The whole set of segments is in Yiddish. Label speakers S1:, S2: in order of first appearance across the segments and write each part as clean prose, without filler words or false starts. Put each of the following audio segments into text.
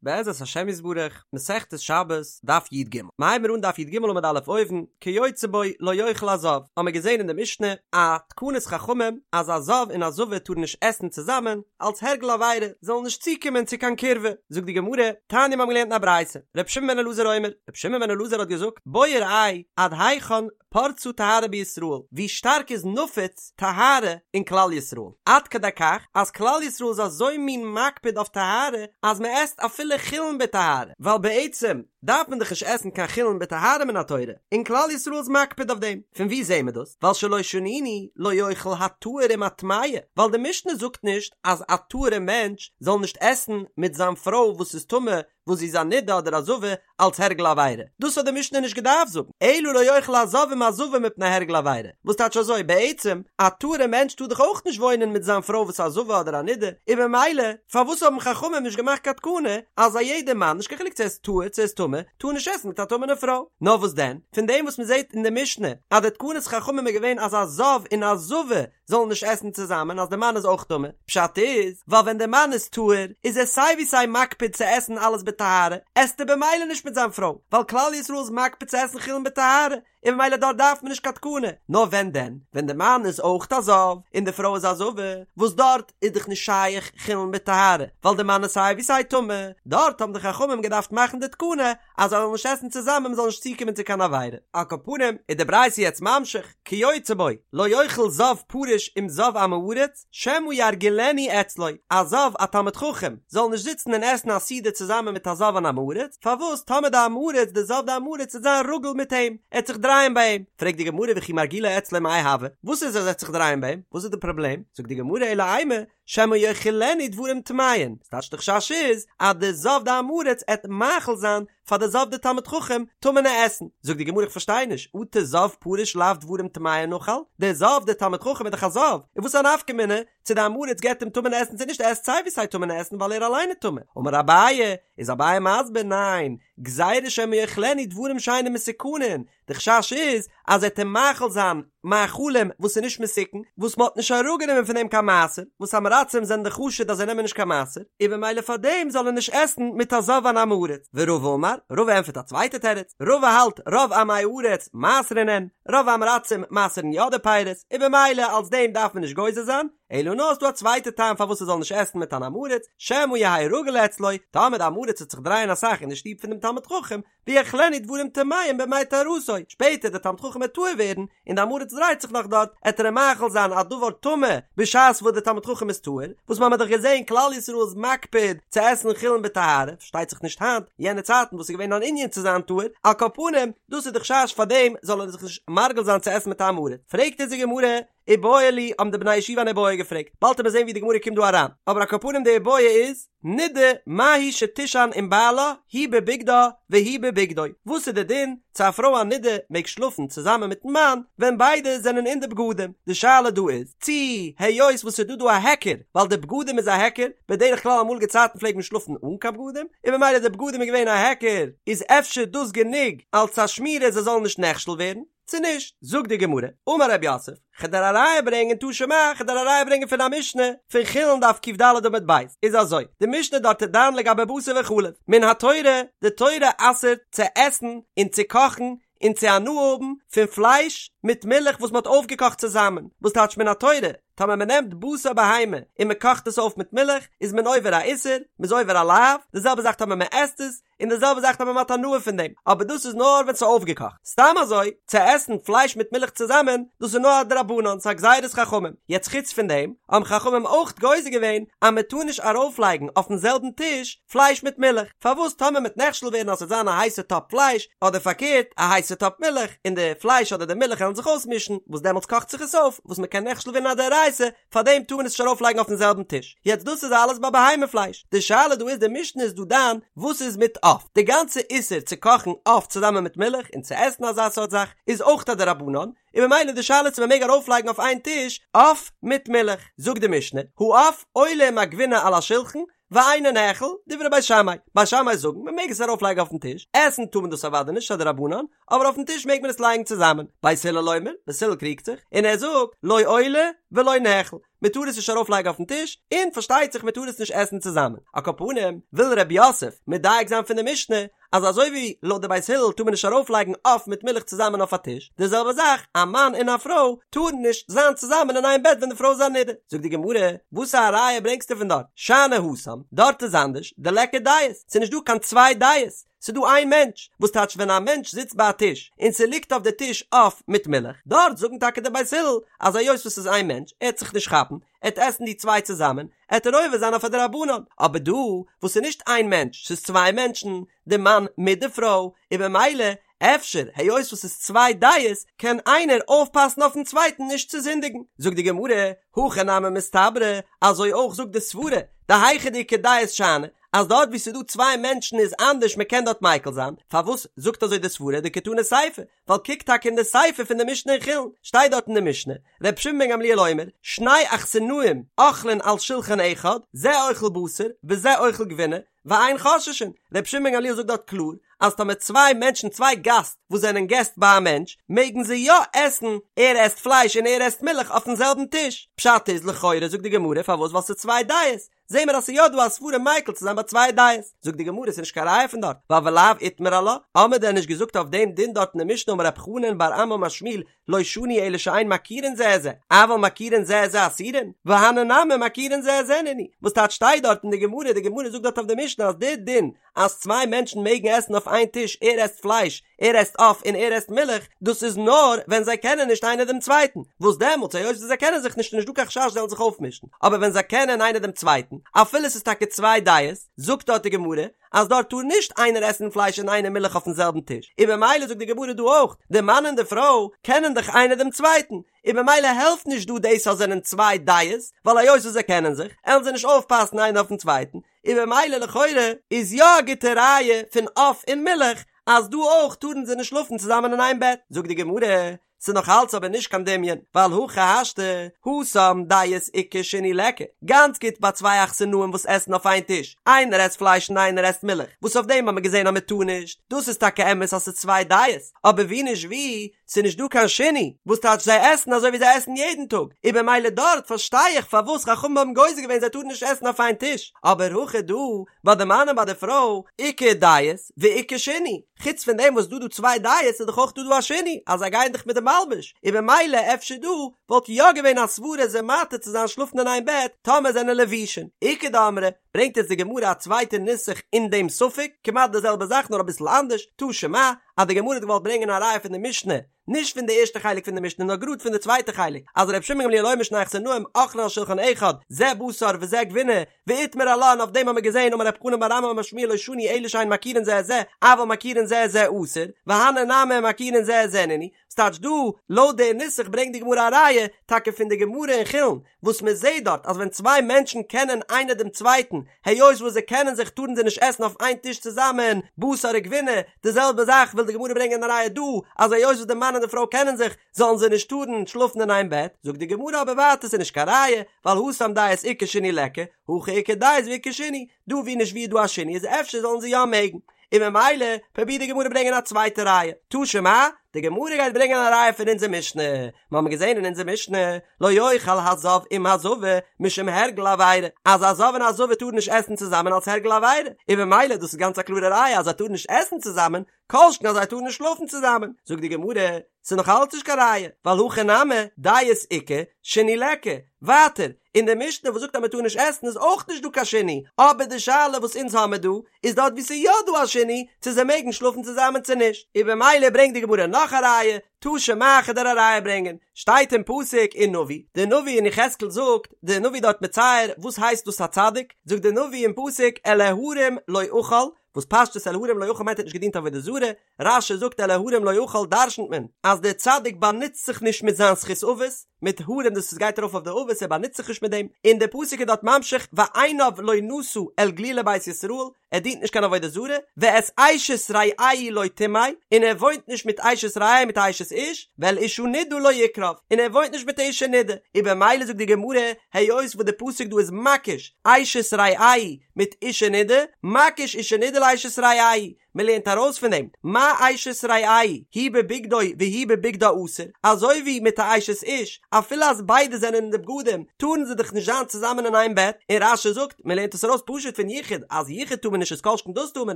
S1: בעזרת השם יתברך, מסכת שבת, דף י"ג. מ'הייבן מיר אן דף י"ג עמוד א' אויבן, כיוצא בו לא יאכל הזב, האמיר געזען אין די משנה א תקנת חכמים אז א זב און א זבה טארן נישט עסן צוזאמען, אלס הרגל עבירה, זאלן נישט צוקומען צו קיין קירבה. זאגט די גמרא, תניא מ'האבן געלערנט אין א ברייתא, ר' שמעון בן אלעזר אומר, ר' שמעון בן אלעזר האט געזאגט, בוא וראה עד היכן פרצה טהרה בישראל, ווי שטארק איז נפוץ טהרה אין כלל ישראל, עד כדי כך אז כלל ישראל איז אזוי מין מקפיד אויף טהרה אז מען עסט אפילו חולין בטהרה, ווייל בעצם דארף מען דאך נישט עסן קיין חולין בטהרה מן התורה, און כלל ישראל איז מקפיד אויף דעם, פון וואו זעהן מיר דאס? ווייל שלא שנינו לא יאכל הטהור עם הטמאה, ווייל די משנה זאגט נישט אז א טהור'ע מענטש זאל נישט עסן מיט זיין פרוי וואס איז טמא וואס זי איז א נידה אדער א זבה אלס הרגל עבירה, דאס האט די משנה נישט געדארפט זאגן, אלא לא יאכל הזב עם הזבה מפני הרגל עבירה, וואס טייטש אזוי, בעצם, א טהור'ע מענטש טאר דאך אויך נישט וואוינען מיט זיין פרוי וואס איז א זבה אדער א נידה, און במילא, פארוואס האבן חכמים נישט געמאכט קיין תקנה אז א יעדער מאן, נישט קיין חילוק צו ער איז טהור צו ער איז טמא, טאר נישט עסן מיט א טמא'נע פרוי? נאר וואס דען, פון דעם וואס מען זעט אין די משנה אז די תקנת חכמים איז געווען אז א זב און א זבה זאלן נישט עסן צוזאמען אז די מאן איז אויך טמא, פשט איז, ווייל ווען די מאן איז טהור איז ער סיי ווי סיי מקפיד צו עסן אלעס בטהרה, עסט ער במילא נישט מיט זיין פרוי, ווייל כלל ישראל איז מקפיד צו עסן חולין בטהרה, און במילא דארט דארף מען נישט קיין תקנה, נאר ווען דען? ווען די מאן איז אויך א זב, און די פרוי איז א זבה, וואס דארט איז דאך נישט שייך חולין בטהרה, ווייל די מאן איז סיי ווי סיי טמא, דארט האבן די חכמים געדארפט מאכן די תקנה אז זיי זאלן נישט עסן צוזאמען מען זאל נישט צוקומען צו קיין עבירה. על כל פנים איז די ברייתא יעצט ממשיך, כיוצא בו, לא יאכל זב פרוש עם זב עם הארץ, שמא ירגילנו אצלו, א זב א תלמיד חכם זאל נישט זיצן און עסן א סעודה צוזאמען מיט א זב אן עם הארץ, פארוואס טאמער די עם הארץ די זב די עם הארץ וועט זיין רגיל מיט אים, ער וועט זיך דרייען ביי אים, פרעגט די גמרא וכי מרגילו אצלו מאי הוי, וואס איז אז ער וועט זיך דרייען ביי אים, וואס איז די פראבלעם, זאגט די גמרא אלא אימא, שמא יאכילנו דברים טמאין, ס'טייטש די חשש איז אז די זב די עם הארץ עט מאכיל זיין פאר די זב די תלמיד חכם טמא'נע עסן, זאגט די גמרא איך פארשטיי נישט, אטו זב פרוש לאו דברים טמאין אכיל, די זב די תלמיד חכם איז דאך א זב, און וואס איז א נפקא מינה צו די עם הארץ געבט אים טמא'נע עסן צו נישט ער עסט סיי ווי סיי טמא'נע עסן ווייל ער אליין איז טמא, אמר אביי, איז אביי מסביר ניין, גזירה שמא יאכילנו דברים שאינם מתוקנין, די חשש איז אז ער וועט אים מאכיל זיין מאכלים וואס איז נישט מתוקן, וואס מען האט נישט אראפגענומען פון דעם קיין מעשר, וואס עם הארצים זענען דאך חשוד אז זיי נעמען נישט קיין מעשר, און במילא פאר דעם זאל ער נישט עסן מיט א זב אן עם הארץ. ורבא אמר, רבא ענטפערט א צווייטע תירוץ, רבא האלט רוב עמי הארץ מעשרין הן, רוב עם הארצים מעשר'ן יא די פירות, און במילא אלס דעם דארף מען נישט גוזר זיין, אלא נאר ס'דא א צווייטע טעם פארוואס ער זאל נישט עסן מיט אן עם הארץ, שמא יהא רגיל אצלו, טאמער די עם הארץ וועט זיך דרייען אסאך אין די שטוב פון דעם תלמיד חכם, ויאכילנו דברים טמאים בימי טהרתו, שפעטער דער תלמיד חכם וועט טהור ווערן, און די עם הארץ דרייט זיך נאך דארט, עט ער אים מאכיל זיין א דבר טמא בשעת וואס דער תלמיד חכם איז טהור, וואס מ'האמיר דאך געזען כלל ישראל איז מקפיד צו עסן חולין בטהרה, פארשטייט זיך נישט היינט, יענע צייטן וואס איז געווען אן ענין צו זיין טהור, על כל פנים, דאס איז די חשש פאר דעם זאל ער זיך נישט מרגיל זיין צו עסן מיט א עם הארץ, פרעגט אונז די גמרא, איבעיא להו האבן די בני ישיבה אן איבעיא געפרעגט, באלד וועט מען זען ווי די גמרא קומט דא אריין, אבער על כל פנים די איבעיא איז, נידה מהו שתישן עם בעלה היא בבגדה והוא בבגדו, וואס איז די דין צו א פרוי א נידה מעג שלאפן צוזאמען מיטן מאן ווען ביידע זענען אין די בגדים, די שאלה דא איז צי היות וואס ס'איז דא דא א היכר ווייל די בגדים איז א היכר, בדרך כלל אמאליגע צייטן פלעגט מען שלאפן אן קיין בגדים, און במילא די בגדים איז געווען א היכר, איז אפשר דאס גענוג אלס א שמירה זיי זאלן נישט נכשל ווערן? צו נישט? זאגט די גמרא, אמר רב יוסף, כ'על דיר א ראיה ברענגען תא שמע, כ'על דיר א ראיה ברענגען פון א משנה, פון חולין דף ק"ד עמוד ב', איז אזוי, די משנה דארט איז דן לגבי בשר וחלב, מן התורה, די תורה אסר'ט צו עסן און צו קאכן און צו הנאה האבן פון פלייש מיט מילך וואס מ'האט אויפגעקאכט צוזאמען, וואס טייטש מן התורה? טאמער מען נעמט בשר בהמה און מען קאכט עס אויף מיט מילך, איז מען עובר א איסור, מען איז עובר א לאו, די זעלבע זאך טאמער מען עסט עס, און די זעלבע זאך טאמער מען האט הנאה פון דעם, אבער דאס איז נאר ווען ס'איז אויפגעקאכט. סתם אזוי, צו עסן פלייש מיט מילך צוזאמען, דאס איז נאר א דרבנן, ס'איז א גזירת חכמים. יעצט חוץ פון דעם, האבן חכמים אויך גוזר געווען אז מען טאר נישט ארויפלייגן אויפן זעלבן טיש פלייש מיט מילך, פארוואס טאמער מ'עט נכשל ווערן אז ס'וועט זיין א הייסע טאפ פלייש, אדער פארקערט, א הייסע טאפ מילך, און די פלייש אדער די מילך וועלן זיך אויסמישן, וואס דעמאלטס קאכט זיך עס אויף, וואס מען קען נכשל ווערן א דאורייתא, פאר דעם טאר מען עס נישט ארויף לייגן אויפן זעלבן טיש. יעצט דאס איז אלעס ביי בהמה פלייש. די שאלה דא איז די משנה איז דא דן וואס איז מיט עוף. די גאנצע איסור צו קאכן עוף צוזאמען מיט מילך און צו עסן אזא סארט זאך איז אויך א דרבנן, און ממילא די שאלה צו מען מעג ארויף לייגן אויף איין טיש עוף מיט מילך. זאגט די משנה, העוף עולה עם הגבינה על השולחן, ואינו נאכל, דברי בית שמאי, בית שמאי זאגן מען מעג עס ארויף לייגן אויפן טיש, עסן טאר מען דאס אוודאי נישט ס'איז א דרבנן, אבער אויפן טיש מעג מען עס לייגן צוזאמען, בית הלל אומר, בית הלל קריגט זיך, און ער זאגט, לא עולה ולא נאכל, מען טאר עס נישט ארויפלייגן אויפן טיש, און פארשטייט זיך מען טאר עס נישט עסן צוזאמען. על כל פנים, וויל רב יוסף מדייק זיין פון די משנה, אז אזוי ווי לויט די בית הלל טאר מען נישט ארויפלייגן עוף מיט מילך צוזאמען אויף א טיש, די זעלבע זאך א מאן און א פרוי טארן נישט זיין צוזאמען אין איין בעט ווען די פרוי איז א נידה. זאגט די גמרא, וואס א ראיה ברענגסטו פון דארט? שאני התם, דארט איז אנדערש, דליכא דעות, ס'איז נישט דא קיין צוויי דעות, ס'איז דא איין מענטש, וואס טייטש ווען א מענטש זיצט ביי א טיש און ס'ליגט אויף די טיש עוף מיט מילך, דארט זאגן טאקע די בית הלל אז היות וואס ס'איז איין מענטש, ער וועט זיך נישט כאפן, ער וועט עסן די צוויי צוזאמען, עט ער עובר זיין אויף א דרבנן, אבער דא וואס ס'איז נישט איין מענטש, ס'איז צוויי מענטשן, די מאן מיט די פרוי, און במילא אפשר היות וואס ס'איז צוויי דעות, קען איינער אויפפאסן אויפן צווייטן נישט צו זינדיגן. זאגט די גמרא, הכי נמי מסתברא, אזוי אויך זאגט די סברה, דהיכא דאיכא דעות שאני, אז דארט וואו ס'איז דא צוויי מענטשן איז אנדערש מ'קען דארט מיקל זיין, פארוואס זאגט אזוי די סברה דקתני סיפא, ווייל קוק טאקע אין די סיפא פון די משנה אין חולין, שטייט דארט אין די משנה, ר' שמעון בן גמליאל אומר, שני אכסנאים אוכלין על שולחן אחד, זה אוכל בשר וזה אוכל גבינה, ואין חוששין, ר' שמעון בן גמליאל זאגט דארט קלאר, אז טאמער צוויי מענטשן צוויי גאסט וואס זענען געסט ביי א מענטש, מעגן זיי יא עסן, ער עסט פלייש און ער עסט מילך אויפן זעלבן טיש, פשט איז לכאורה זאגט די גמרא פארוואס ווייל ס'איז צוויי דעות, זעהן מיר אז ס'איז יא דא א סברה מיקל צו זיין ביי צוויי דעות. זאגט די גמרא ס'איז נישט קיין ראיה פון דארט, ווייל ולאו איתמר עלה, האמיר דען נישט געזאגט אויף דעם דין דארט אין די משנה אמר רב חנן בר אמי אמר שמואל לא שנו אלא שאין מכירין זה את זה, אבל מכירין זה את זה אסורין, והני נמי מכירין זה את זה נינהו, וואס טייטש שטייט דארט אין די גמרא, די גמרא זאגט דארט אויף די משנה אז די דין אז צוויי מענטשן מעגן עסן אויף איין טיש ער עסט פלייש ער עסט עוף און ער עסט מילך, דאס איז נאר ווען זיי קענען נישט איינער דעם צווייטן, וואס דעמאלטס היות וואס זיי קענען זיך נישט איז נישט דא קיין חשש זיי זאלן זיך אויפמישן, אבער ווען זיי קענען איינער דעם צווייטן, אפילו ס'איז טאקע צוויי דעות, זאגט דארט די גמרא אז דארט טאר נישט איינער עסן פלייש און איינער מילך אויפן זעלבן טיש, און במילא זאגט די גמרא דא אויך, די מאן און די פרוי קענען דאך איינער דעם צווייטן, און במילא העלפט נישט דא דאס אז זענען צוויי דעות, ווייל היות וואס זיי קענען זיך, עלן זיי נישט אויפפאסן איינער אויפן צווייטן, און במילא לכאורה איז יא א גוטע ראיה פון עוף און מילך אז דא אויך טארן זיי נישט שלאפן צוזאמען אין איין בעט, זאגט די גמרא, ס'איז נאך אלץ אבער נישט קיין דמיון, ווייל הכי השתא, התם דעות איכא שינוי ליכא, גאנץ גוט ביי צוויי אכסנאים וואס עסן אויף איין טיש, איינער עסט פלייש און איינער עסט מילך, וואס אויף דעם האט מען געזען אז מען טאר נישט, דאס איז טאקע אמת אז ס'איז צוויי דעות, אבער ווי נישט ווי, ס'איז נישט דא קיין שינוי, וואס טייטש זיי עסן אזוי ווי זיי עסן יעדן טאג, און במילא דארט פארשטיי איך פארוואס חכמים האבן גוזר געווען זיי טארן נישט עסן אויף איין טיש, אבער הכא דא, ביי די מאן און ביי די פרוי, איכא דעות ואיכא שינוי, חוץ פון דעם וואס דא דא צוויי דעות איז דאך אויך דא דא א שינוי, אז זיי גייען דאך מיט די מלבוש, און במילא אפשר דא וואלט יא געווען א סברה זיי מתיר צו זיין שלאפן אין איין בעט טאמער זענען לבושין, איכא דאמרי, ברענגט יעצט די גמרא א צווייטע נוסח אין דעם ספק, כמעט די זעלבע זאך נאר אביסל אנדערש, תא שמע, אז די גמרא האט געוואלט ברענגען א ראיה פון די משנה, נישט פון די ערשטע חלק פון די משנה נאר גראד פון די צווייטע חלק, אז ר' שמעון גמליאל אומר שני אכסנאים אוכלין על שולחן אחד, זה בשר וזה גבינה, ואיתמר עלה און אויף דעם האבן מיר געזען אמר רב חנן בר אמי אמר שמואל לא שנו אלא שאין מכירין זה את זה, אבל מכירין זה את זה אסור, והני נמי מכירין זה את זה נינהו, ס'טייטש דא, לויט די נוסח ברענגט די גמרא א ראיה, טאקע פון די גמרא אין חולין, וואס מען זעט דארט אז ווען צוויי מענטשן קענען איינער דעם צווייטן, היות וואס זיי קענען זיך טארן זיי נישט עסן אויף איין טיש צוזאמען, בשר וגבינה, די זעלבע זאך וויל די גמרא ברענגען א ראיה דא, אז היות וואס די מאן און די פרוי קענען זיך, זאלן זיי נישט טארן שלאפן אין איין בעט, זאגט די גמרא אבער ווייטער ס'איז נישט קיין ראיה, ווייל התם דעות איכא שינוי ליכא, הכא איכא דעות ואיכא שינוי, דא ווי נישט ווי איז דא א שינוי איז אפשר זאלן זיי יא מעגן. און ממילא פרובירט די גמרא ברענגען א צווייטע ראיה, תא שמע, די גמרא גייט ברענגען א ראיה פון אונזער משנה, מיר האבן געזען אין אונזער משנה, לא יאכל הזב עם הזבה משום הרגל עבירה, אז א זב און א זבה טארן נישט עסן צוזאמען אלס הרגל עבירה, און ממילא דאס איז גאנץ א קלארע ראיה אז זיי טארן נישט עסן צוזאמען, כל שכן אז זיי טארן נישט שלאפן צוזאמען, זאגט די גמרא, ס'איז נאך אלץ נישט קיין ראיה, ווייל הכא נמי, דעות איכא, שינוי ליכא, ווייטער, אין די משנה וואס זאגט אז מ'טאר נישט עסן איז אויך נישט דא קיין שינוי, אבער די שאלה וואס אונז האמער דא, איז דארט וואו ס'איז יא דא א שינוי, צו זיי מעגן שלאפן צוזאמען צו נישט, און במילא ברענגט די גמרא נאך א ראיה, תא שמע כ'וועל דיר א ראיה ברענגען, שטייט אין פסוק אין נביא, די נביא אין יחזקאל זאגט, די נביא דארט מצייר, וואס הייסט דאס א צדיק, זאגט די נביא אין פסוק אל ההרים לא אכל, וואס פשטות אל ההרים לא אכל מיינט ער האט נישט געדינט עבודה זרה, רש"י זאגט אל ההרים לא אכל דרשנ'ט מען אז דער צדיק באנוצט זיך נישט מיט זיין זכות אבות, מיט הרים דאס וואס גייט ארויף אויף די אבות ער באנוצט זיך נישט מיט דעם, און דער פסוק איז דארט ממשיך ועיניו לא נשא אל גלולי בית ישראל, ער דינט נישט קיין עבודה זרה, ואת אשת רעהו לא טמא, און ער וואוינט נישט מיט אשת רעהו מיט א אשת איש, ואל אשה נדה לא יקרב, און ער וואוינט נישט מיט א אשה נדה, און במילא זאגט די גמרא, היות וואס די פסוק דא איז מקיש אשת רעהו מיט אשה נדה, מקיש אשה נדה לאשת רעהו. מען לערנט ארויס פון דעם, מה אשת רעהו הוא בבגדו והיא בבגדה אסור, אזוי ווי מיט א אשת איש, אפילו אז ביידע זענען אין די בגדים, טארן זיי דאך נישט זיין צוזאמען אין איין בעט, און רש"י זאגט, מען לערנט עס ארויס פשוט פון יחוד, אז יחוד טאר מען נישט איז כל שכן דאס טאר מען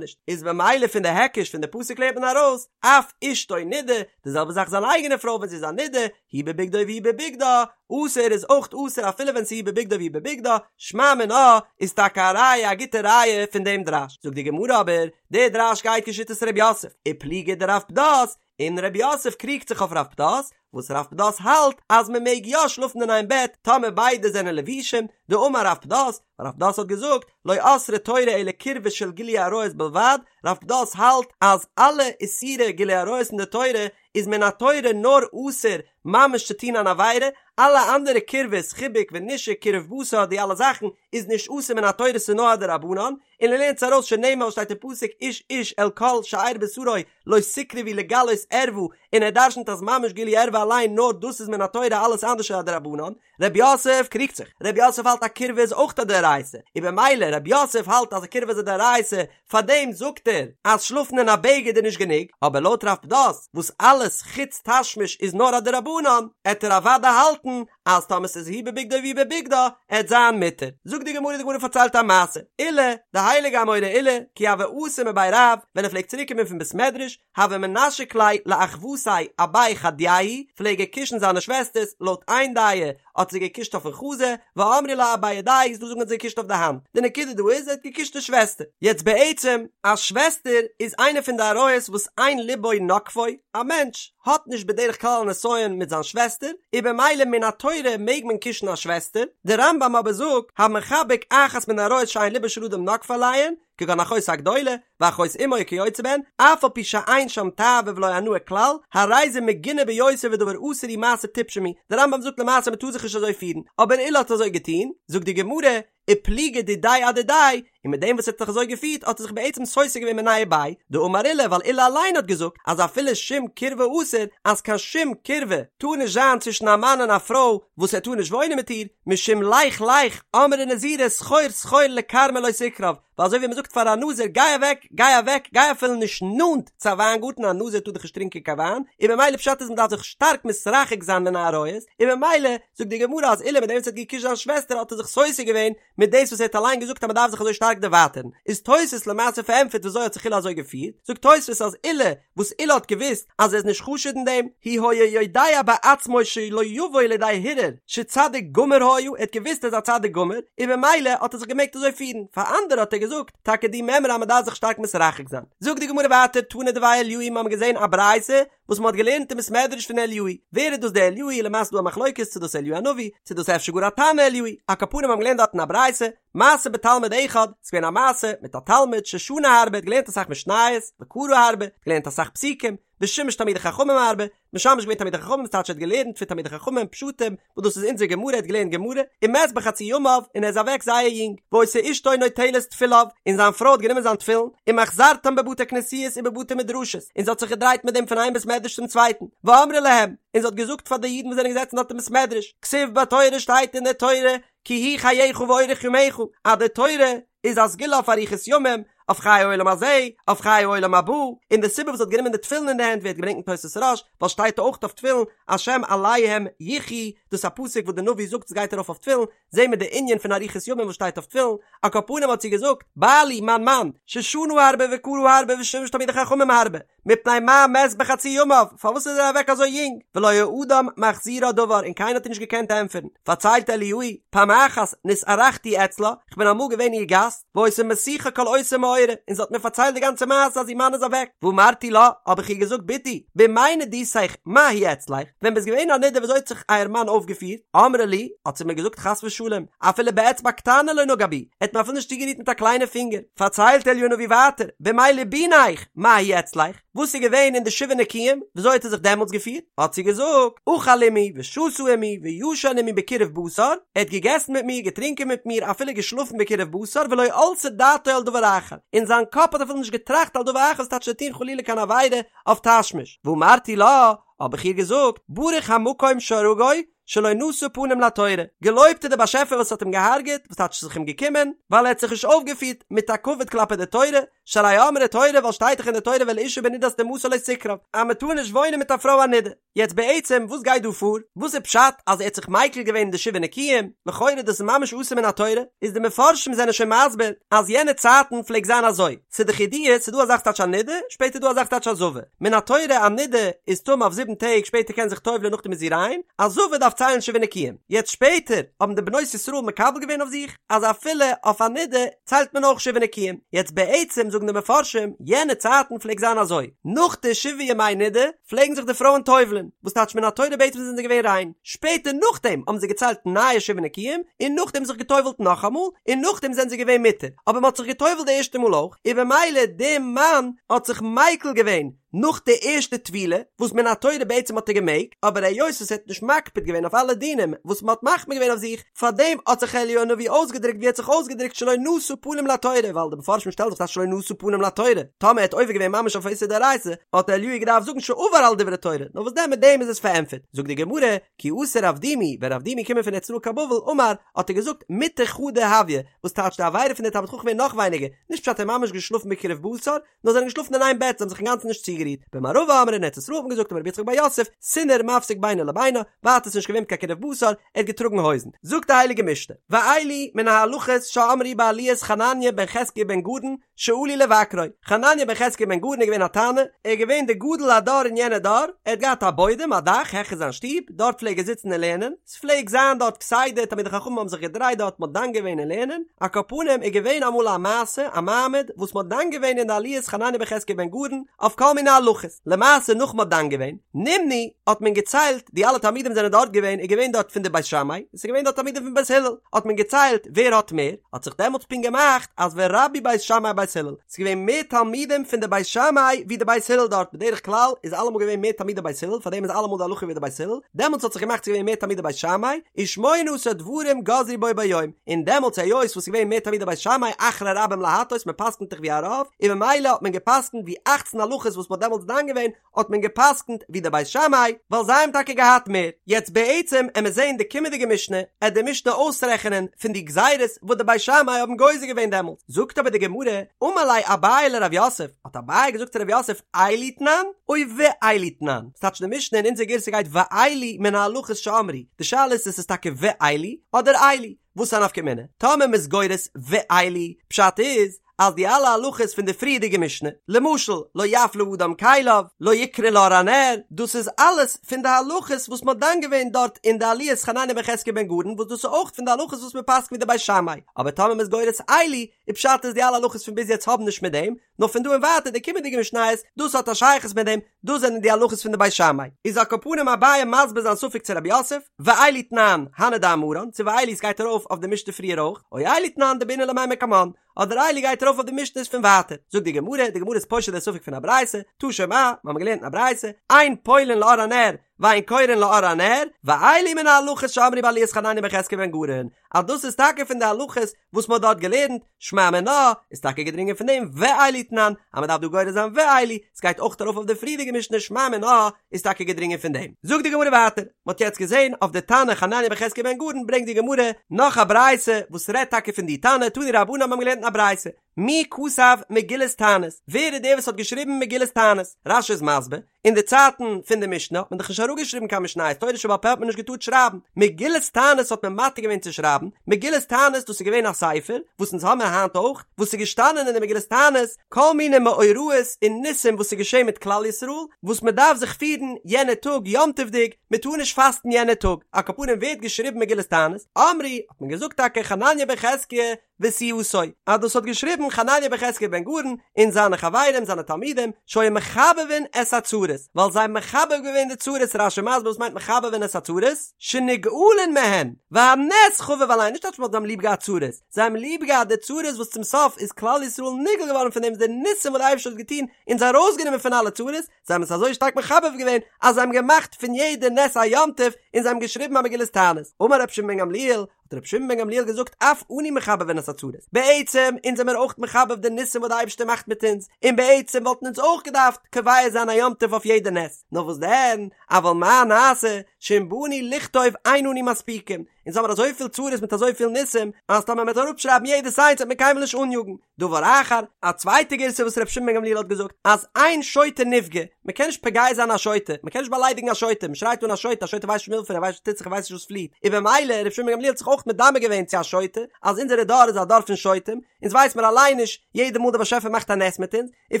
S1: נישט, איז במילא פון די היקש פון די פסוק לערנט מען ארויס, אף אשתו נידה, די זעלבע זאך זיין אייגענע פרוי ווען זי איז א נידה, הוא בבגדו והיא בבגדה, אסור איז אויך אסור אפילו ווען ס'איז הוא בבגדו והיא בבגדה, שמע מינה איז טאקע א ראיה א גוטע ראיה פון דעם דרש, זאגט די גמרא אבער, דער דרש גייט כשיטת ר' יוסף, ופליגא דרב פדת, און ר' יוסף קריגט זיך אויף רב פדת, וואס רב פדת האלט אז מען מעג יא שלאפן אין איין בעט טאמער ביידע זענען לבושים, דאמר רב פדת, רב פדת האט געזאגט, לא אסרה תורה אלא קירבה של גילוי עריות בלבד, רב פדת האלט אז אלע איסורי גילוי עריות אין די תורה איז מן התורה נאר אסור ממש צו טון אן עבירה, אלע אנדערע קירבות, חיבוק ונישוק, קירוב בשר, די אלע זאכן איז נישט אסור מן התורה ס'איז נאר א דרבנן, און ער לערנט עס ארויס שנאמר שטייט אין פסוק איש איש אל כל שאר בשרו לא תקרבו לגלות ערווה, און ער דרשנ'ט אז ממש גילוי ערווה אליין נאר דאס איז מן התורה אלעס אנדערש איז א דרבנן, רב יוסף קריגט זיך, רב יוסף האלט א קירבה איז אויך א דאורייתא, און במילא רב יוסף האלט אז א קירבה איז א דאורייתא, פארדעם זאגט ער אז שלאפן אין א בגד איז נישט גענוג, אבער לויט רב פדת וואס אלעס חוץ תשמיש איז נאר א דרבנן, עט ער אוודאי האלטן אז טאמער ס'איז הוא בבגדו והיא בבגדה עט זיין מותר. זאגט די גמרא, די גמרא פארציילט א מעשה, עולא, די הייליגע אמורא עולא, כי הוה אתי מבי רב, ווען ער פלעגט צוריק קומען פון בית מדרש, הוה מנשק ליה לאחוותיה אבי חדייהו, פלעג ער קישן זיינע שוועסטערס, לויט איין דעה האט זיי געקישט אויפן חזה, ואמרי לה אבי ידייהו איז דא זאגן האט זיי געקישט אויף די האנט, די נקודה דא איז ער האט געקישט די שוועסטער. יעצט בעצם, א שוועסטער איז איינע פון די עריות וואס אין ליבו נוקפו, א מענטש האט נישט בדרך כלל א נסיון מיט זיין שוועסטער, און במילא מן התורה מעג מען קישן א שוועסטער, די רמב"ם אבער זאגט, המחבק אחת מן העריות שאין ליבו של אדם נוקפו עליהן, כגון אחותו הגדולה, ואחות אמו וכיוצא בהן, אף על פי שאין שם תאווה ולא הנאה כלל, הרי זה מגונה ביותר ודבר אסור ומעשה טיפשים הוא, דער רמב"ם זאגט למעשה מ'טאר זיך נישט אזוי פירן, אבער עולא האט אזוי געטון, זאגט די גמרא, ופליגא דידיה אדידיה, און מיט דעם וואס ער האט זיך אזוי געפירט האט ער זיך בעצם סותר געווען מיניה וביה, דאמר עולא ווייל עולא אליין האט געזאגט אז אפילו שום קירבה אסור, אז קיין שום קירבה טאר נישט זיין צווישן א מאן און א פרוי וואס ער טאר נישט וואוינען מיט איר, משום לך לך אמרה נזירה סחור סחור לכרמא לא תקרב, ווייל אזוי ווי מען זאגט פאר א נזיר גיי אוועק גיי אוועק גיי אפילו נישט נאנט צו א וויינגארטן א נזיר טאר דאך נישט טרינקען קיין וויין, און ממילא פשט איז מען דארף זיך שטארק מתרחק זיין מן העריות, און ממילא זאגט די גמרא אז עולא מיט דעם וואס ער האט געקושט זיין שוועסטער האט ער זיך סותר געווען מיט דאס וואס ער האט אליין געזאגט אז מען דארף זיך אזוי שטארק דערווייטערן, איז תוס' למעשה פארענטפערט וויאזוי האט זיך עולא אזוי געפירט, זאגט תוס' אז עולא וואס עולא האט געוואוסט אז ער איז נישט חשוד אין דעם, הוא היה יודע בעצמו שלא יבוא לידי הרהור שצדיק גמור היה, ער האט געוואוסט ער איז א צדיק גמור, און ממילא האט ער זיך געמעגט אזוי פירן, פאר אנדערע האט ער געזאגט טאקע די מימרא אז מען דארף זיך שטארק מתרחק זיין. זאגט די גמרא ווייטער תנא דבי אליהו מיר האבן געזען א ברייתא וואס מען האט געלערנט אין בית מדרש פון אליהו, ווער איז דאס דער אליהו, למעשה איז דא א מחלוקת צו דאס אליהו הנביא, צו דאס אפשר גאר א תנא אליהו, על כל פנים האבן געלערנט דארטן א ברייתא, מעשה בתלמיד אחד, ס'איז געווען א מעשה מיט א תלמיד ששנה הרבה, האט געלערנט אסאך משניות, וקרא הרבה, געלערנט אסאך פסוקים, ושימש תלמידי חכמים הרבה, משמש געווען תלמידי חכמים, ס'טייטש ער האט געלערנט פון תלמידי חכמים פשטים, וואס דאס איז אונזער גמרא, ער האט געלערנט גמרא, ומת בחצי ימיו, און ער איז אוועק זייער יונג, והיתה אשתו נוטלת תפיליו, און זיין פרוי האט גענומען זיין תפילין, ומחזרתם בבתי כנסיות ובבתי מדרשות, און זי האט זיך געדרייט מיט דעם פון איין בית מדרש צום צווייטן, ואמרה להם, און זי האט געזאגט פאר די אידן וואס זענען געזעצן דארט אין בית מדרש, כתיב בתורה שטייט אין דער תורה, כי הוא חייך ואורך ימיך, אז די תורה איז א סגולה אויף אריכות ימים, אויף חיי העולם הזה, אויף חיי העולם הבא, און די סיבה וואס זי האט גענומען די תפילין אין די הענט ווערט געברענגט אין תוס' רא"ש, ווייל שטייט אויך אויף תפילין, השם עליהם יחיו, דאס איז א פסוק וואס די נביא זאגט עס גייט ארויף אויף תפילין, זעהן מיר די ענין פון אריכות ימים וואס שטייט אויף תפילין, על כל פנים האט זי געזאגט, בעלי מיין מאן, ששנה הרבה וקרא הרבה ושימש תלמידי חכמים הרבה, מפני מה מת בחצי ימיו, פארוואס איז ער אוועק אזוי יונג, ולא היה אדם מחזירה דבר און קיינער האט איר נישט געקענט ענטפערן, פארציילט אליהו, פעם אחת נתארחתי אצלה, כ'בין אמאל געווען איר גאסט, והיתה מסיחה כל אותו מאורע, און זי האט מיר פארציילט די גאנצע מעשה אז איר מאן איז אוועק, ואמרתי לה, האב איך איר געזאגט בתי, בימי נדותך מה הוא אצלך, ווען ביסט געווען א נדה וויאזוי האט זיך אייער מאן אויפגעפירט, אמרה לי, האט זי מיר געזאגט חס ושלום, אפילו באצבע קטנה לא נגע בי, ער האט מיר אפילו נישט צוגערירט מיט א קליינע פינגער, פארציילט אליהו הנביא ווייטער, בימי ליבוניך, מה הוא אצלך, וואס איז געווען אין די שבעה נקיים, וויאזוי האט ער זיך דעמאלטס געפירט? האט זי געזאגט, אכל עמי ושתה עמי וישן עמי בקירוב בשר, ער האט געגעסן מיט מיר, געטרינקען מיט מיר, אפילו געשלאפן בקירוב בשר, ולא עלתה דעתו על דבר אחר, אין זיין קאפ האט אפילו נישט געטראכט על דבר אחר, ס'טייטש צו טון חלילה קיין עבירה אויף תשמיש. ואמרתי לה, האב איך איר געזאגט, ברוך המקום שהרגו, שלא נשא פנים לתורה, געלויבט איז דער באשעפער וואס האט אים געהארגעט, וואס טייטש ס'איז זיך אים געקומען, ווייל ער האט זיך נישט אויפגעפירט מיט א כבוד כלפי די תורה, שהרי אמרה תורה ווייל שטייט דאך אין די תורה ואל אשה בנדת טומאתה לא תקרב אז מען טאר נישט וואוינען מיט א פרוי א נידה. יעצט בעצם וואס גייט דא פאר? וואס איז פשט אז ער האט זיך מיקל געווען אין די שבעה נקיים? לכאורה דאס איז ממש אסור מן התורה, איז די מפרשים זענען שוין מסביר אז יענע צייטן פלעגט זיין אזוי, ס'איז דאך ידוע ס'איז דא א זאך ס'טייטש א נידה, שפעטער איז דא א זאך ס'טייטש א זבה, מן התורה א נידה איז טמא אויף זיבן טעג שפעטער קען זיך טובל'ען נאכדעם איז זי ריין, א זבה דארף ציילן שבעה נקיים, יעצט שפעטער האבן די בנות ישראל מקבל געווען אויף זיך אז אפילו אויף א נידה ציילט מען אויך שבעה נקיים, יעצט בעצם זאגן די מפרשים יענע צייטן פלעגט זיין אזוי, נאך די שבעה ימי נידה פלעגן זיך די פרויען טובל'ען, וואס טייטש מן התורה בעצם זענען זיי געווען ריין, שפעטער נאכדעם האבן זיי געציילט נייע שבעה נקיים, און נאכדעם זיך געטובל'ט נאכאמאל, און נאכדעם זענען זיי געווען מותר, אבער מען האט זיך געטובל'ט די ערשטע מאל אויך, און במילא די מאן האט זיך מיקל געווען נאך די ערשטע טבילה, וואס מן התורה בעצם האט ער געמעגט, אבער היות וואס ער האט נישט מקפיד געווען אויף אלע דינים וואס מען האט מחמיר געווען אויף זיך, פארדעם האט זיך אליהו הנביא אויסגעדרוקט ווי ער האט זיך אויסגעדרוקט שלא נשא פנים לתורה, ווייל די מפרשים שטעלן זיך אז שלא נשא פנים לתורה, טאמער ער האט עובר געווען ממש אויף איסור דאורייתא, האט אליהו געדארפט זאגן שעבר על דברי תורה, נאר וואס דען מיט דעם איז עס פארענטפערט, זאגט די גמרא, כי אתא רב דימי, ווען רב דימי קומען פון ארץ ישראל קיין בבל, אמר, האט ער געזאגט, מיטה חדא הויא, וואס טייטש די עבירה פון די תלמיד חכם איז נאך ווייניגער, נישט פשט ער האט ממש געשלאפן בקירוב בשר, נאר זיי זענען געשלאפן אין איין בעט, זיי האבן זיך אינגאנצן נישט צוגערירט. במערבא אמרי אין ארץ ישראל האט מען געזאגט אמר רבי יצחק בר יוסף, סינר מפסיק בינו לבינה, ווייטער ס'איז נישט געווען קיין קירוב בשר, ער האט געטראגן הויזן. זאגט די הייליגע משנה, ואלו מן ההלכות שאמרו בעליית חנניה בן חזקיה בן גרון שעלו לבקרו, חנניה בן חזקיה בן גרון איז געווען א תנא, ער איז געווען די גדול הדור אין יענע דור, ער האט געהאט א בוידעם, א דאך, העכער זיין שטוב, דארט פלעג ער זיצן און לערנען, ס'פלעג זיין דארט כסדר תלמידי חכמים האבן זיך געדרייט דארט מ'האט דן געווען אין לערנען, על כל פנים איז געווען אמאל א מעשה א מעמד וואס מ'האט דן געווען אין די עליית חנניה בן חזקיה בן גרון אויף כל מיני הלכות, למעשה נאך מ'האט דן געווען, נמנו, האט מען געציילט די אלע תלמידים זענען דארט געווען איז געווען דארט פון די בית שמאי און ס'איז געווען דארט תלמידים פון בית הלל, האט מען געציילט ווער האט מער, האט זיך דעמאלטס פונקט געמאכט אז ורבו בית שמאי בית הלל, ס'איז געווען מער תלמידים פון די בית שמאי ווי די בית הלל דארט, בדרך כלל איז אלעמאל געווען מער תלמידי בית הלל, פארדעם איז אלעמאל די הלכה ווי די בית הלל, דעמאלטס האט זיך געמאכט ס'איז געווען מער תלמידי בית שמאי, ושמונה עשר דברים גזרו בו ביום, און דעמאלטס היות וואס ס'איז געווען מער תלמידי בית שמאי אחרי רבים להטות, מ'פסק'נט דאך ווי א רוב, און ממילא האט מען געפסק'נט ווי אכצן הלכות וואס מ'האט דעמאלטס דן געווען, האט מען געפסקנט ווי די בית שמאי ווייל זיי האבן טאקע געהאט מער. יעצט בעצם עמער זעהן די קומענדיגע משנה עט די משנה אויסרעכענען פון די גזירות וואס די בית שמאי האבן גוזר געווען דעמאלטס, זאגט אבער די גמרא, אמר ליה אביי לרב יוסף, האט אביי געזאגט צו רב יוסף אלו תנן או ואלו תנן, ס'טייטש די משנה אין אונזער גירסא גייט ואלו מן ההלכות שאמרו, די שאלה איז צו ס'איז טאקע ואלו אדער אלו, וואס איז א נפקא מינה? טאמער מ'איז גורס ואלו, פשט איז אז די אלע הלכות פון די פריערדיגע משנה, למשל לא יפלה אדם כליו, לא יקרא לאור הנר, דאס איז אלעס פון די הלכות וואס מ'האט דן געווען דארט אין די עליית חנניה בן חזקיה בן גרון וואס דאס איז אויך פון די הלכות וואס מ'פסק'נט ווי די בית שמאי, אבער טאמער מ'איז גורס אלו, איז פשט אז די אלע הלכות פון ביז יעצט האבן נישט מיט דעם, נאר פון דא און ווייטער די קומענדיגע משניות, דאס האט א שייכות מיט דעם, דאס זענען די הלכות פון די בית שמאי. איז על כל פנים אביי מסביר זיין ספק צו רב יוסף, ואלו תנן, הני דאמרן, צו ואלו ס'גייט ארויף אויף די משנה פריער אויך, או אלו תנן דבעינן למימר קמן, אדער אלו גייט ארויף אויף די משניות פון ווייטער. זאגט די גמרא, די גמרא איז פושט די ספק פון א ברייתא, תא שמע, מיר האבן געלערנט אין א ברייתא, אין פולין לאור הנר, ואין קורין לאור הנר, ואלו מן ההלכות שאמרו בעליית חנניה בן חזקיה בן גרון, אז דאס איז טאקע פון די הלכות וואס מען האט דארט געלערנט, שמע מינה, איז טאקע געדרינגען פון דעם ואלו תנן, אז מען דארף דא גורס זיין ואלו, ס'גייט אויך ארויף אויף די פריערדיגע משנה שמע מינה, איז טאקע געדרינגען פון דעם. זאגט די גמרא ווייטער, מען האט יעצט געזען אויף די תנא חנניה בן חזקיה בן גרון ברענגט די גמרא נאך א ברייתא וואס רעדט טאקע פון די תנא, תנו רבנן האבן געלערנט אין א ברייתא, מי כתב מגילת תענית, ווער איז דער וואס האט געשריבן מגילת תענית? רש"י איז מסביר, אין די צייטן פון די משנה האט מען דאך נישט אראפגעשריבן קיין משניות, תורה שבעל פה האט מען נישט געטארט שרייבן, מגילת תענית האט מען מתיר געווען צו שרייבן, מגילת תענית דאס איז געווען א ספר, וואס אונז האמיר היינט אויך, וואס איז געשטאנען אין די מגילת תענית, כל מיני מאורעות און ניסים וואס איז געשען מיט כלל ישראל, וואס מען דארף זיך פירן יענע טאג יום טוב'דיג, מען טאר נישט פאסטן יענע טאג, על כל פנים ווער האט געשריבן מגילת תענית? אמרו, האט מען געזאגט טאקע חנניה בן חזקיה, וסיעתו, אז דאס האט געשריבן חנניה בן חזקיה בן גרון און זיינע חברים זיינע תלמידים שהיו מחבבין את הצרות, ווייל זיי האבן מחבב געווען די צרות, רש"י מסביר וואס מיינט מחבבין את הצרות, שנגאלין מהן, והנס חביב עליהן, נישט אז מ'האט זיי האבן ליב געהאט צרות, זיי האבן ליב געהאט די צרות וואס צום סוף איז כלל ישראל נגאל געווארן פון דעם די ניסים וואס די אייבערשטער האט געטון אונז ארויסגענומען פון אלע צרות, זיי האבן עס אזוי שטארק מחבב געווען אז זיי האבן געמאכט פון יעדע נס א יום טוב און זיי האבן געשריבן א מגילת תענית, אמר רבי שמעון בן גמליאל, האט רבי שמעון בן גמליאל געזאגט אף אנו מחבבין את הצרות, בעצם אונז זעמיר אויך מחבב די ניסים וואס די אייבערשטער מאכט מיט אונז, און בעצם וואלטן אונז אויך געדארפט קובע זיין א יום טוב אויף יעדע נס, נאר וואס דען, אבל מה נעשה, שאם באנו לכתוב אין אנו מספיקים, אונז האמיר אזויפיל צרות מיט אזויפיל ניסים, אז טאמער מ'וועט אראפשרייבן יעדעס איינס וועט מען קיינמאל נישט אניאגן. דבר אחר, א צווייטע גירסא וואס ר' שמעון בן גמליאל האט געזאגט, אז אין שוטה נפגע, מ'קען נישט פוגע זיין א שוטה, מ'קען נישט באליידיגן א שוטה, מ'שרייט אן א שוטה, א שוטה ווייסט נישט מילפער, ער ווייסט נישט וואס טוט זיך, ער ווייסט נישט וואס פליעט, און במילא ר' שמעון בן גמליאל האט זיך אויך מדמה געווען צו א שוטה, אז אונזערע דור איז א דור פון שוטים, אונז ווייס מיר אליין נישט יעדע מאל דער באשעפער מאכט א נס מיט אונז, און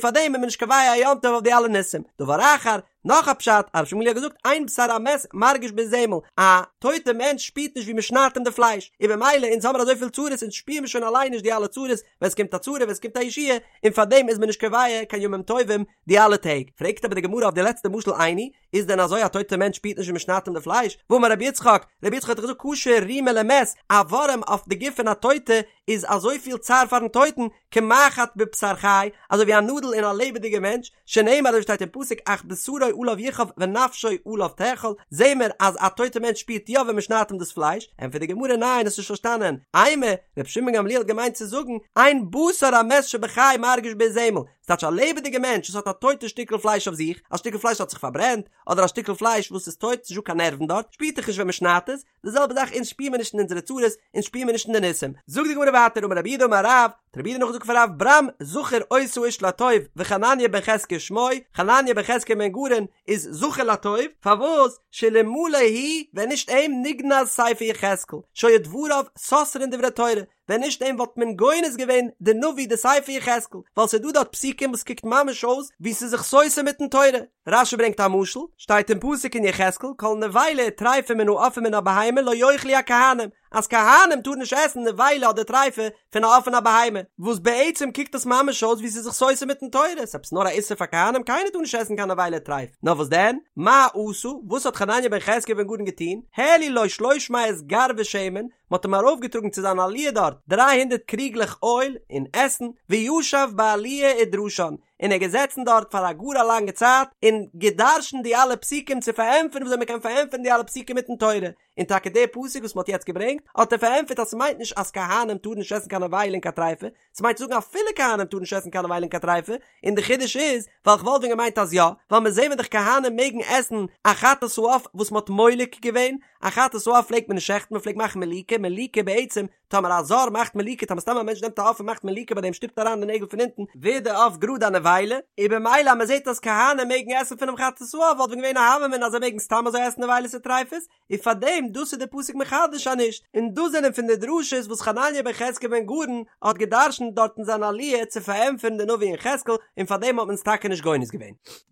S1: פארדעם איז מען נישט קובע א יום טוב אויף די אלע ניסים. דבר אחר, נאך א פשט, אז ר' שמעון בן גמליאל האט געזאגט אין בשר המת מרגיש באזמל, א טויטע מענטש שפירט נישט ווי מען שניידט אים די פלייש, און במילא אונז האמיר אזויפיל צרות אונז שפירן מיר שוין אליין נישט די אלע צרות, ווען ס'קומט א צרה ווען ס'קומט א ישועה, און פארדעם איז מען נישט קובע קיין ימים טובים די אלע טעג. פרעגט אבער די גמרא אויף די לעצטע משל איני, איז דען אזוי א טויטע מענטש שפירט נישט ווי מען שניידט אים די פלייש? והאמר רבי יצחק, רבי יצחק האט דאך געזאגט קשה רימה למת, א ווארעם אויף די גוף פון א טויטע איז אזויפיל צער פארן טויטן, כמחט בבשר חי, אזוי ווי א נאדל אין א לעבעדיגע מענטש, שנאמר אזוי שטייט אין פסוק אך בשרו עליו יכאב ונפשו עליו תאכל, זעהן מיר אז א טויטע מענטש שפירט יא ווען מען שניידט אים דאס פלייש, ענטפערט די גמרא ניין האסט נישט פארשטאנען, אימא, רבי שמעון בן גמליאל האט געמיינט צו זאגן, אין בשר המת שבחי מרגיש באזמל, ס'טייטש א לעבעדיגע מענטש וואס האט א טויטע שטיקל פלייש אויף זיך, א שטיקל פלייש האט זיך פארברענט, אדער א שטיקל פלייש וואס איז טויט, ס'נישט דא קיין נערוון דארט, שפירט דאך נישט ווען מ'שניידט עס, די זעלבע זאך אונז שפיר מיר נישט אין אונזערע צרות, אונז שפיר מיר נישט אין די ניסים. זאגט די גמרא ווייטער אמר רב יהודה אמר רב, האט רב יהודה נאכגעזאגט פון רב ברם זכור אותו האיש לטוב וחנניה בן חזקיה שמו, חנניה בן חזקיה בן גרון איז זכור לטוב, פארוואס? שאלמלא הוא, ווען נישט אים נגנז ספר יחזקאל, שהיו דבריו סותרין דברי תורה, ווען נישט אים וואלט מען גונז געווען די נביא די ספר יחזקאל, ווייל ס'איז דא דארט פסוקים וואס קוקט ממש אויס ווי ס'איז זיך סותר מיטן תורה. רש"י ברענגט א משל, שטייט אין פסוק אין יחזקאל כל נבילה וטריפה מן העוף ומן הבהמה לא יאכלו הכהנים, אז כהנים טארן נישט עסן נבילה אדער טריפה פון א עוף און א בהמה, וואס בעצם קוקט עס ממש אויס ווי ס'איז זיך סותר מיטן תורה, ס'איז עפעס נאר א איסור פאר כהנים, קיינער טאר נישט עסן קיין נבילה טריפה, נאר וואס דען? מה עשה? וואס האט חנניה בן חזקיה בן גרון געטון? העלו לו שלוש מאות גרבי שמן, מ'האט אים ארויפגעטראגן צו זיין עליה דארט דריי הונדערט קריגלעך אויל און עסן, וישב בעליה ודרשן, און ער איז געזעצן דארט פאר א גאר א לאנגע צייט און גע'דרש'נט די אלע פסוקים צו פארענטפערן וויאזוי מ'קען פארענטפערן די אלע פסוקים מיטן תורה, און טאקע די פסוק וואס מ'האט יעצט געברענגט האט ער פארענטפערט אז ס'מיינט נישט אז כהנים טארן נישט עסן קיין נבילה און קיין טריפה, ס'מיינט צו זאגן אפילו כהנים טארן נישט עסן קיין נבילה און קיין טריפה, און די חידוש איז, ווייל כ'וואלט ווען געמיינט אז יא, ווייל מיר זעהן דאך כהנים מעגן עסן א חטאת העוף וואס מ'האט מולק געווען, א חטאת העוף פלעגט מען נישט שעכטן מ'פלעגט מאכן מליקה, מליקה בעצם, טאמער א זר מאכט מליקה, טאמער סתם א מענטש נעמט א עוף און מאכט מליקה ביי דעם שטופט אריין די נעגל פון אונטן, ווערט די עוף גראד א נבילה, און במילא אז מ'זעהט אז כהנים מעגן עסן פונעם חטאת העוף וואלט ווען געווען א הוה אמינא אז זיי מעגן סתם אזוי עסן נבילות וטריפות, און פאר דעם דאס איז די פסוק מחדש אז נישט, און דאס זענען פון די דרשות וואס חנניה בן חזקיה בן גרון האט געדרשנט דארט אין זיין עליה צו פארענטפערן די נביא יחזקאל, און פאר דעם האט מען עס טאקע נישט גונז געווען.